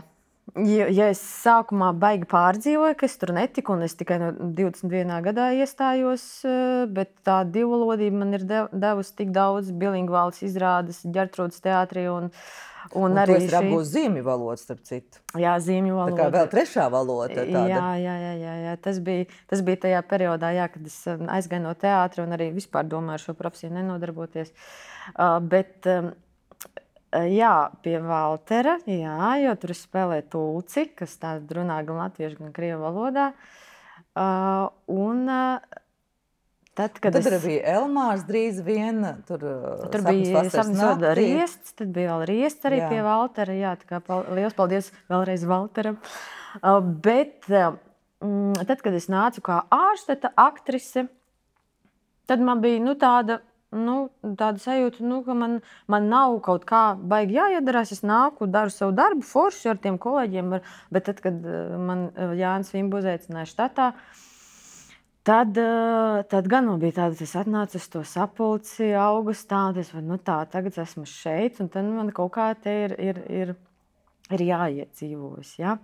Ja es sākumā baigi pārdzīvoju, ka es tur netiku, un es tikai no 21. gadā iestājos, bet tā divvalodība man ir devusi tik daudz bilingvālas izrādes Ģertrūdes teātrī, un arī tu esi apgūst zīmju valodu, starp citu. Jā, zīmju valodu. Tā kā vēl 3. valoda tāda. Jā. Tas bija tajā periodā, kad es aizgāju no teātra un arī vispār domāju ar šo profesiju nenodarboties. Bet pie Valtera, jo tur spēlē tulci, kas tāda runā gan latviešu, gan krievu valodā. Un Tad arī bija Elmārs drīz vien. Tur bija sapnis riests, tad bija vēl riests arī pie Valtera. Jā, tā kā liels paldies vēlreiz Valteram. Bet tad, kad es nācu kā ārstete, aktrise, tad man bija tāda sajūta, ka man nav kaut kā baigi jāiedarās. Es nāku, daru savu darbu forši ar tiem kolēģiem, bet tad, kad man Jānis Vimbu uzaicināja štatā, tad gan man bija tāda, es atnācu uz to sapulci augustā, un tagad esmu šeit, un tad man kaut kā te ir jāiedzīvojas. Ja?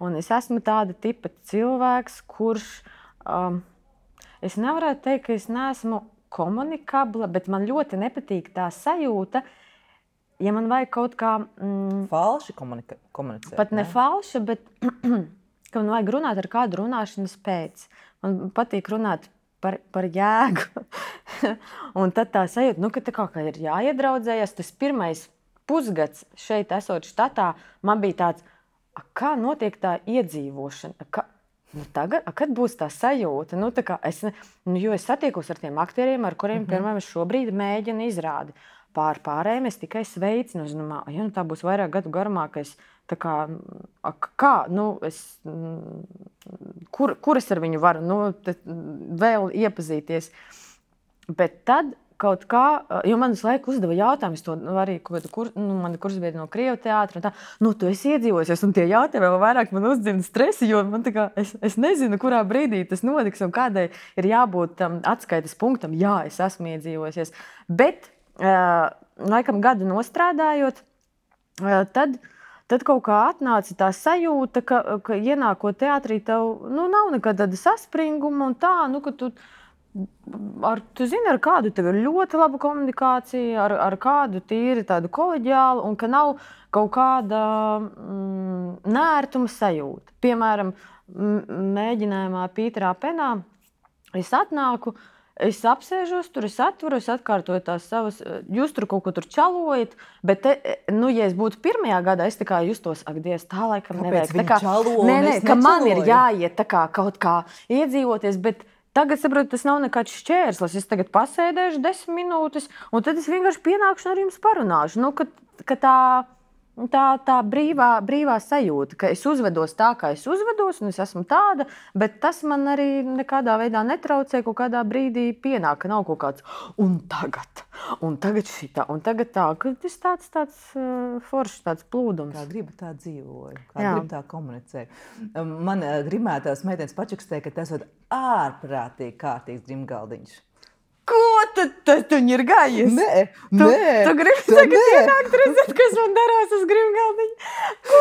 Un es esmu tāda tipa cilvēks, kurš, es nevarētu teikt, ka es neesmu komunikabla, bet man ļoti nepatīk tā sajūta, ja man vajag kaut kā... falši komunicēt. Pat ne falši, bet ka man vajag runāt ar kādu runāšanas pēc. Man patīk runāt par jēgu. Un tad tā sajūta, ka tā kā ir jāiedraudzējas. Tas pirmais pusgads šeit esot štatā, man bija tāds, kā notiek tā iedzīvošana? Tagad, kad būs tā sajūta? Jo es satiekos ar tiem aktieriem, ar kuriem, piemēram, šobrīd mēģina izrādi. Pārējiem es tikai sveicinu. Tā būs vairāk gadu garumā, ka es kur es ar viņu varu vēl iepazīties. Bet tad kaut kā, jo man visu laiku uzdeva jautājumus, to arī mani kursbiedri no Krievu teātra, tu esi iedzīvojusies, un tie jautājumi vēl vairāk man uzdzina stresi, jo man es nezinu, kurā brīdī tas notiks un kādai ir jābūt atskaites punktam. Jā, es esmu iedzīvojusies. Bet, laikam gadu nostrādājot, tad kaut kā atnāca tā sajūta, ka ienākot teātrī tev nav nekāda tāda saspringuma un tā, ka tu zini, ar kādu tev ir ļoti laba komunikācija, ar kādu tīri tādu koleģiālu, un ka nav kaut kāda nērtuma sajūta. Piemēram, mēģinājumā Pīterā Penā es atnāku, es apsēžos tur, es atveru, es atkārtoju tās savas, jūs tur kaut ko tur čalojat, bet, ja es būtu pirmajā gadā, es tā kā justos, ak, Dievs, tā laikam nevajag. Ka man ir jāiet tā kā kaut kā iedzīvoties, bet tagad, saprotu, tas nav nekāds šķērslis. Es tagad pasēdēšu 10 minūtes, un tad es vienkārši pienākšu un ar jums parunāšu. Ka tā brīvā sajūta, ka es uzvedos tā, kā es uzvedos, un es esmu tāda, bet tas man arī nekādā veidā netraucē, kaut kādā brīdī pienāk, ka nav kaut kāds un tagad šitā, un tagad tā, ka tas tāds foršs, tāds plūdums. Kā gribu tā dzīvoju, kā gribu tā komunicēju. Man grimētās meitenes pačukstēja, ka tas ir ārprātīgi kārtīgs grimgaldiņš. Ko tad viņi ir gājies? Nē. Tu gribi tagad ienākt redzēt, kas man darās uz grimgaldiņa? Ko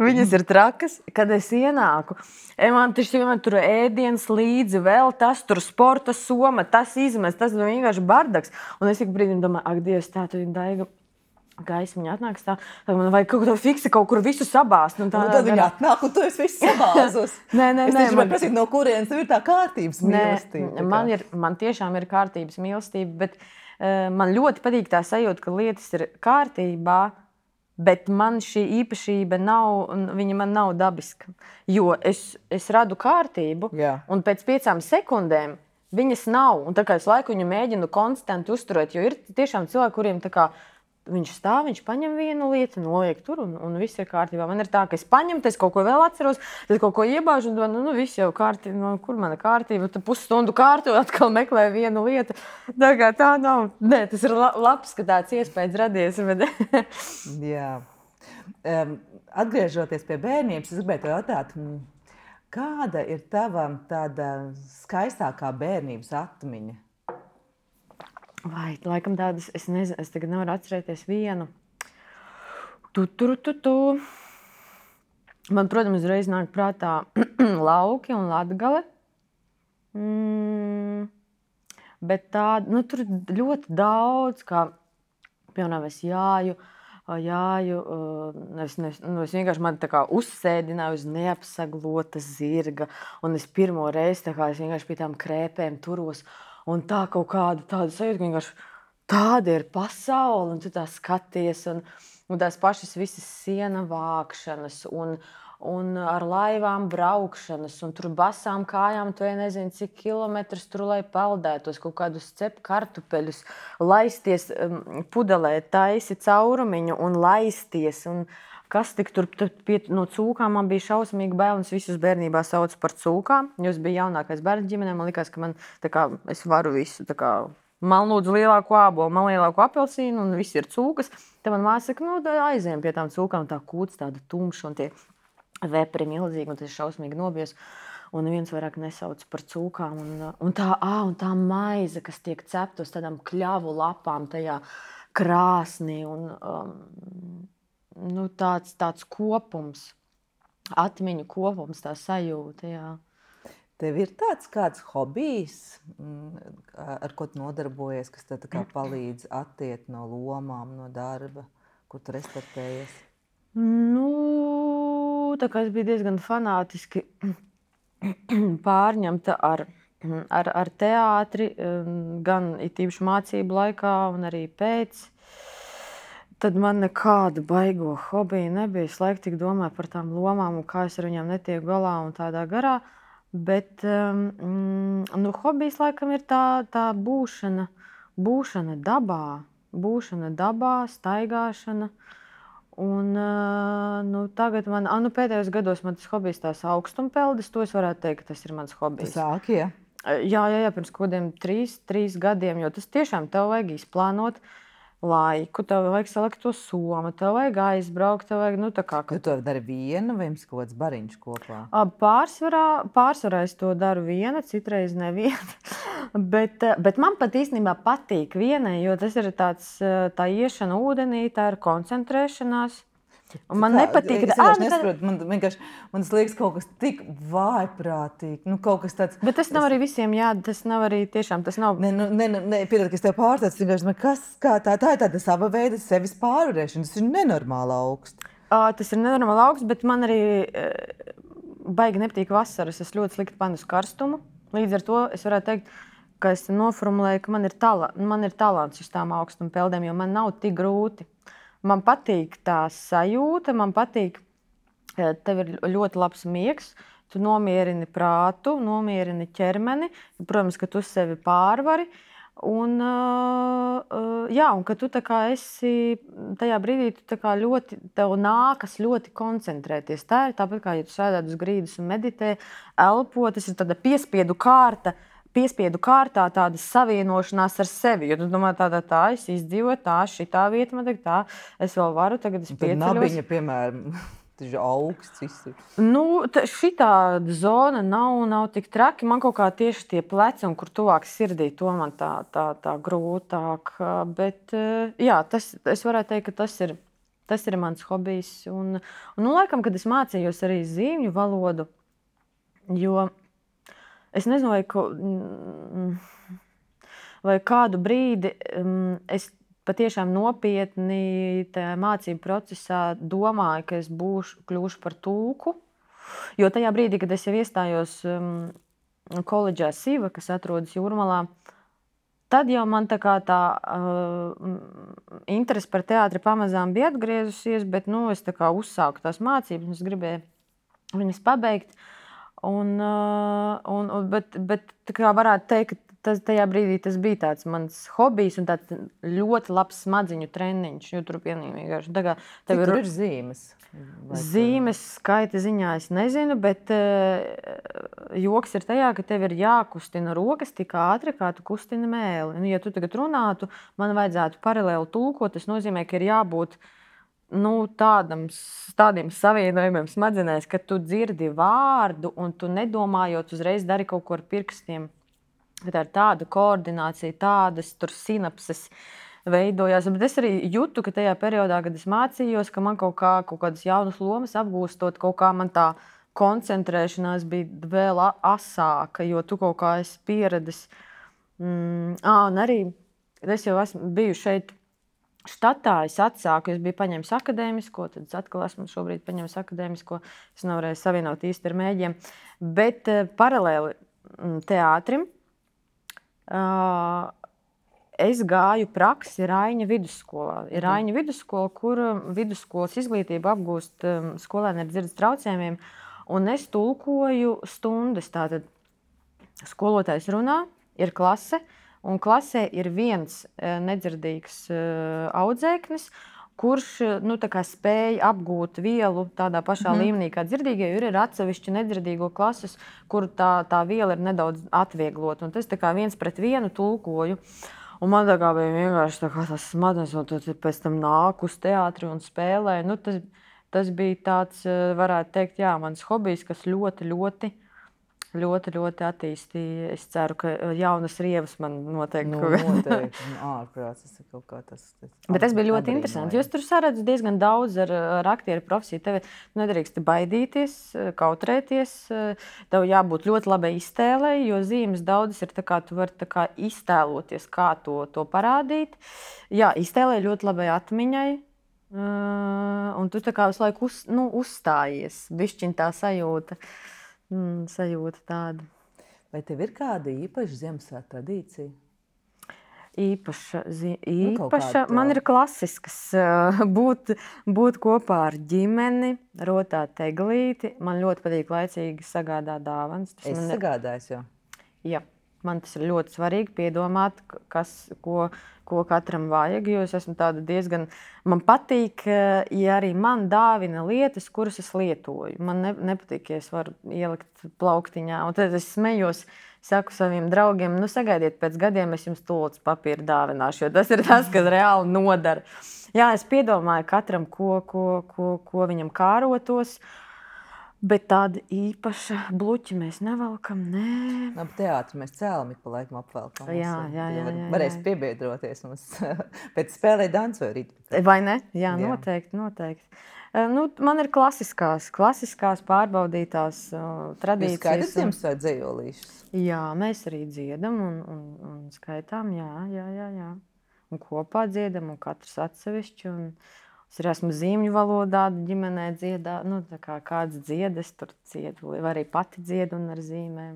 viņas ir trakas, kad es ienāku. Man tur ēdienas līdzi, vēl tas tur sporta soma, tas izmest, tas vienkārši bardaks. Un es ik brīdim domāju, ak, Dievs, tā tu viņa Daiga gaismiņa atnāks tā, tad man vajag kaut ko fiksi kaut kur visu sabāzt. Tad viņa atnāk, un tu esi visu sabāzus. Nē. Es tieši man prasīt, no kurienes tev ir tā kārtības mīlestība. Man tiešām ir kārtības mīlestība, bet man ļoti patīk tā sajūta, ka lietas ir kārtībā, bet man šī īpašība viņa man nav dabiska. Jo es radu kārtību, un pēc 5 sekundēm viņas nav. Un tā kā es laiku viņu mēģinu konstanti uzturēt, jo ir tiešām cilvēki, kuriem tā kā viņš stāv, viņš paņem vienu lietu, noliek tur, un viss ir kārtībā. Man ir tā, ka es paņemu, tad es kaut ko vēl atceros, tad kaut ko iebāžu, un viss jau kārtībā. Kur mana kārtība? Tad pusstundu kārtu, atkal meklēju vienu lietu. Tā kā tā nav. Nē, tas ir labs, ka tāds iespējas radies. Bet... Jā. Atgriežoties pie bērnības, es gribētu jautāt, kāda ir tava tāda skaistākā bērnības atmiņa? Vai, laikam tādas, es nezinu, es tagad nevaru atcerēties vienu. Man, protams, uzreiz nāk prātā Lauki un Latgale. Bet tāda, tur ļoti daudz, kā, piemēram, es jāju, es vienkārši man tā kā uzsēdināju uz neapsaglota zirga, un es pirmo reizi tā kā es vienkārši pie tām krēpēm turos. Un tā kaut kāda tāda sajūta, ka vienkārši tāda ir pasaule, un tu tā skaties, un tās pašas visas siena vākšanas, un ar laivām braukšanas, un tur basām kājām, tu nezini, cik kilometrus tur, lai peldētos, kaut kādus cep kartupeļus, laisties pudelē, taisi caurumiņu un laisties. Un kas tik tur no cūkām man bija šausmīgi bail, un es visus bērnībā saucu par cūkām, jo es biju jaunākais bērns ģimenē, man likās, ka man tā kā es varu visu tā kā. Man lūdzu lielāko ābolu, man lielāko apelsīnu, un viss ir cūkas. Tad man māsa saka, aizējām pie tām cūkām, tā kūts tāda tumša, un tie vepri milzīgi, un tas šausmīgi nobies. Un neviens vairāk nesauc par cūkām. Un tā maize, kas tiek cepta uz tādām kļavu lapām tajā krāsnī. Un, tāds kopums, atmiņu kopums, tā sajūta, jā. Tev ir tāds kāds hobijs, ar ko tu nodarbojies, kas tev tā kā palīdz attiekt no lomām, no darba, kur tu restartējies? Tā kā es biju diezgan fanātiski pārņemta ar teātri, gan it īpaši mācību laikā un arī pēc. Tad man nekāda baigo hobija nebija. Es laiku tik domāju par tām lomām un kā es ar viņām netieku galā un tādā garā. Bet hobijs laikam ir tā būšana dabā, staigāšana. Un tagad pēdējos gados man tas hobijs tās augstumpeldis, to es varētu teikt, ka tas ir mans hobijs. Tu sāki, ja? Jā, pirms kodiem 3 gadiem, jo tas tiešām tev vajag izplānot laiku, tev vajag salikt to somu, tev vajag aizbraukt, tev vajag, Tu to dari viena vai jums kaut kāds bariņš kopā? Pārsvarā es to daru viena, citreiz neviena. bet man pat īstenībā patīk vienai, jo tas ir tā iešana ūdenī, tā ir koncentrēšanās. Un man nepatīk, es nesaprotu, man liekas kaut kas tik vājprātīgi, kaut kas tāds. Bet tas nav arī visiem jādara, tas nav arī tiešām, tas nav. Piedod, ka es tev pārstāstu, tā ir tāda sava veida sevis pārvarēšana, tas ir nenormāli augsts. Tas ir nenormāli augsts, bet man arī baigi nepatīk vasaras, es ļoti slikti panu uz karstumu. Līdz ar to es varētu teikt, ka es noformulēju, ka man ir talants uz tām augstuma peldēm, jo man nav tik grūti. Man patīk tā sajūta, man patīk, tev ir ļoti labs miegs, tu nomierini prātu, nomierini ķermeni, protams, ka tu sevi pārvari. Un ka tu tā kā esi tajā brīdī, tu tā kā tev nākas ļoti koncentrēties. Tā ir tāpat kā, ja tu sēdētu uz grīdas un meditē, elpo, tas ir tāda piespiedu kārtā tāda savienošanās ar sevi. Jo tu domā, tā es izdzīvoju, šitā vieta man tā, es vēl varu, tagad es pieceļos. Tad nabiņa, piemēram, tas ir augsts viss. Šitā zona nav tik traki. Man kaut kā tieši tie pleci, un kur tuvāk sirdī, to man tā grūtāk. Bet, jā, es varētu teikt, ka tas ir mans hobijs. Un laikam, kad es mācījos arī zīmju valodu, jo es nezinu, vai kādu brīdi es patiešām nopietni tajā mācību procesā domāju, ka es kļūšu par tulku. Jo tajā brīdī, kad es jau iestājos koledžā Siva, kas atrodas Jūrmalā, tad jau man tā interese par teātri pamazām bija atgriezusies, bet es tā kā uzsāku tās mācības, un es gribēju viņas pabeigt. Bet tā kā varētu teikt, ka tajā brīdī tas bija tāds mans hobijs un tāds ļoti labs smadziņu treniņš. Jo tur vienkārši Tur ir zīmes. Zīmes skaita ziņā es nezinu, bet joks ir tajā, ka tev ir jākustina rokas tik ātri, kā tu kustini mēli. Un, ja tu tagad runātu, man vajadzētu paralēli tulkot, tas nozīmē, ka ir jābūt tādiem savienojumiem smadzenēs, ka tu dzirdi vārdu un tu nedomājot uzreiz dari kaut ko ar pirkstiem. Tā ir tāda koordinācija, tādas tur sinapses veidojās. Bet es arī jūtu, ka tajā periodā, kad es mācījos, ka man kaut kādas jaunas lomas apgūstot, kaut kā man tā koncentrēšanās bija vēl asāka, jo tu kaut kā esi pieredzis. Un arī es jau esmu biju šeit štatā, es atsāku, es biju paņēmis akadēmisko, tad es atkal esmu šobrīd paņēmis akadēmisko, es nevarēju savienot īsti ar mēģiem, bet paralēli teātrim es gāju praksi Raiņa vidusskolā. Ir Raiņa vidusskola, kur vidusskolas izglītību apgūst skolēni ar dzirdes traucējumiem. Un es tulkoju stundas. Tātad skolotājs runā, ir klase, un klasē ir viens nedzirdīgs audzēknis, kurš spēja apgūt vielu tādā pašā līmenī kā dzirdīgie, jo ir atsevišķi nedzirdīgo klases, kur tā viela ir nedaudz atvieglota. Un tas tā kā 1-1 tulkoju. Un man tā kā bija vienkārši tas smadzenes, un tad pēc tam nāk uz teātri un spēlē. Tas bija tāds, varētu teikt, jā, mans hobijs, kas ļoti attīstīja. Es ceru, ka jaunas rievas man noteikti. Noteikti. Ārprāts, tas ir kaut kā tas. Bet tas bija ļoti interesanti. Jūs tur saredz diezgan daudz ar aktieru profesiju. Tev nedrīkst baidīties, kautrēties. Tev jābūt ļoti labai iztēlei, jo zīmes daudzas ir tā kā tu vari tā kā iztēloties, kā to parādīt. Jā, iztēlē ļoti labai atmiņai. Un tu tā kā visu laiku uzstājies. Bišķiņ tā sajūta tāda. Vai tev ir kāda īpaša Ziemassvētku tradīcija? Īpaša. Man ir klasiskas būt kopā ar ģimeni, rotāt eglīti. Man ļoti patīk laicīgi sagādāt dāvanas. Sagādājis jau? Jā. Man tas ir ļoti svarīgi piedomāt, ko katram vajag, jo es esmu tāda diezgan... Man patīk, ja arī man dāvina lietas, kuras es lietoju. Man nepatīk, ja es varu ielikt plauktiņā. Un tad es smejos, saku saviem draugiem, sagaidiet pēc gadiem, es jums tūlīt papīru dāvināšu, jo tas ir tas, kas reāli nodara. Jā, es piedomāju katram, ko viņam kārotos. Bet tāda īpaša bluķa mēs nevelkam, nē. Teātri mēs cēlam ik pa laikam apvelkam. Jā. Varēs piebiedroties mums pēc spēlē dancoju rīt. Vai ne? Jā, noteikti. Man ir klasiskās pārbaudītās tradīcijas. Jūs skaitat Ziemassvētku dzejolīšus? Jā, mēs arī dziedam un skaitām, jā. Un kopā dziedam, un katrs atsevišķi. Es arī esmu zīmju valodā, ģimenē dziedā, tā kā kāds dzied, es tur dziedu, vai arī pati dziedu un ar zīmēm.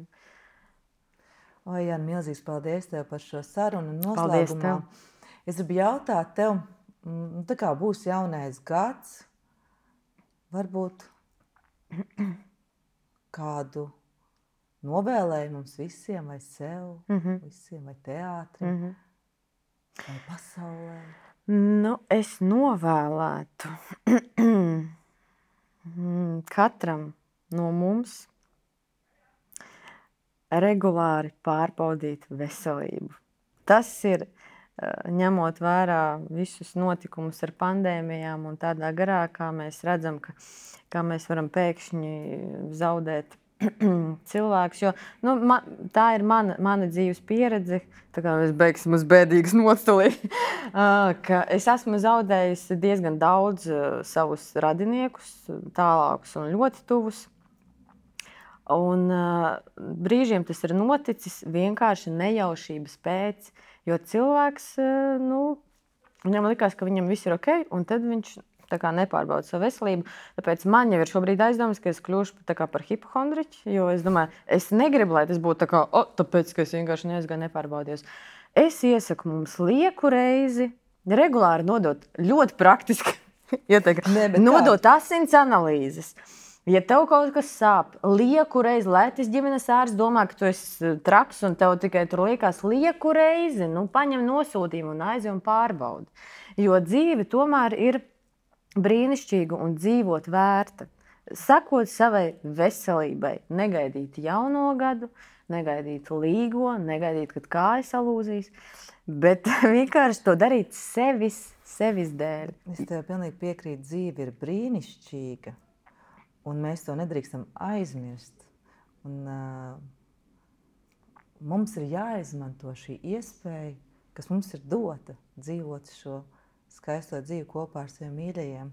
Jāni, milzīgs paldies tev par šo sarunu un noslēgumā. Es gribu jautāt tev, tā kā būs jaunais gads, varbūt kādu novēlējumu mums visiem, vai sev, visiem, vai teātrim, vai pasaulē? Es novēlētu katram no mums regulāri pārbaudīt veselību. Tas ir, ņemot vērā visus notikumus ar pandēmijām un tādā garā, kā mēs redzam, kā mēs varam pēkšņi zaudēt cilvēks, jo tā ir mana dzīves pieredze, tā kā mēs beigsim uz bēdīgas noceli, ka es esmu zaudējusi diezgan daudz savus radiniekus, tālākus un ļoti tuvus. Un brīžiem tas ir noticis vienkārši nejaušības pēc, jo cilvēks, viņam likās, ka viņam viss ir ok, un tad viņš tā kā nepārbauda savu veselību. Tāpēc man jau ir šobrīd aizdomas, ka es kļūšu tā kā par hipohondriķi, jo es domāju, es negribu, lai tas būtu tā kā, tāpēc, ka es vienkārši neaizgāju nepārbaudījos. Es iesaku mums lieku reizi, regulāri nodot ļoti praktiski, nodot asins analīzes. Ja tev kaut kas sāp, lieku reizi, lai tas ģimenes ārsts domā, ka tu esi traks un tev tikai tur liekas lieku reizi, paņem nosūtījumu un aizej un pārbaudi. Jo dzīve tomēr ir brīnišķīga un dzīvot vērta. Sakot savai veselībai, negaidīt jauno gadu, negaidīt līgo, negaidīt, kad kājas salūzīs, bet vienkārši to darīt sevis dēļ. Es tev pilnīgi piekrītu, dzīve ir brīnišķīga, un mēs to nedrīkstam aizmirst. Un, mums ir jāizmanto šī iespēja, kas mums ir dota, dzīvot šo skaisto dzīvi kopā ar saviem mīļajiem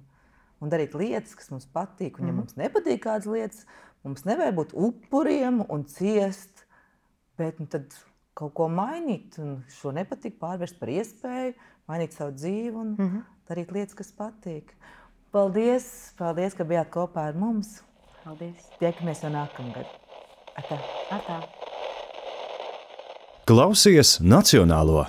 un darīt lietas, kas mums patīk. Un ja mums nepatīk kādas lietas, mums nevajag būt upuriem un ciest, bet tad kaut ko mainīt un šo nepatīk pārvērst par iespēju, mainīt savu dzīvi un darīt lietas, kas patīk. Paldies, ka bijāt kopā ar mums. Paldies. Tiekamies jau nākamgad. Atā. Atā. Klausies Nacionālo!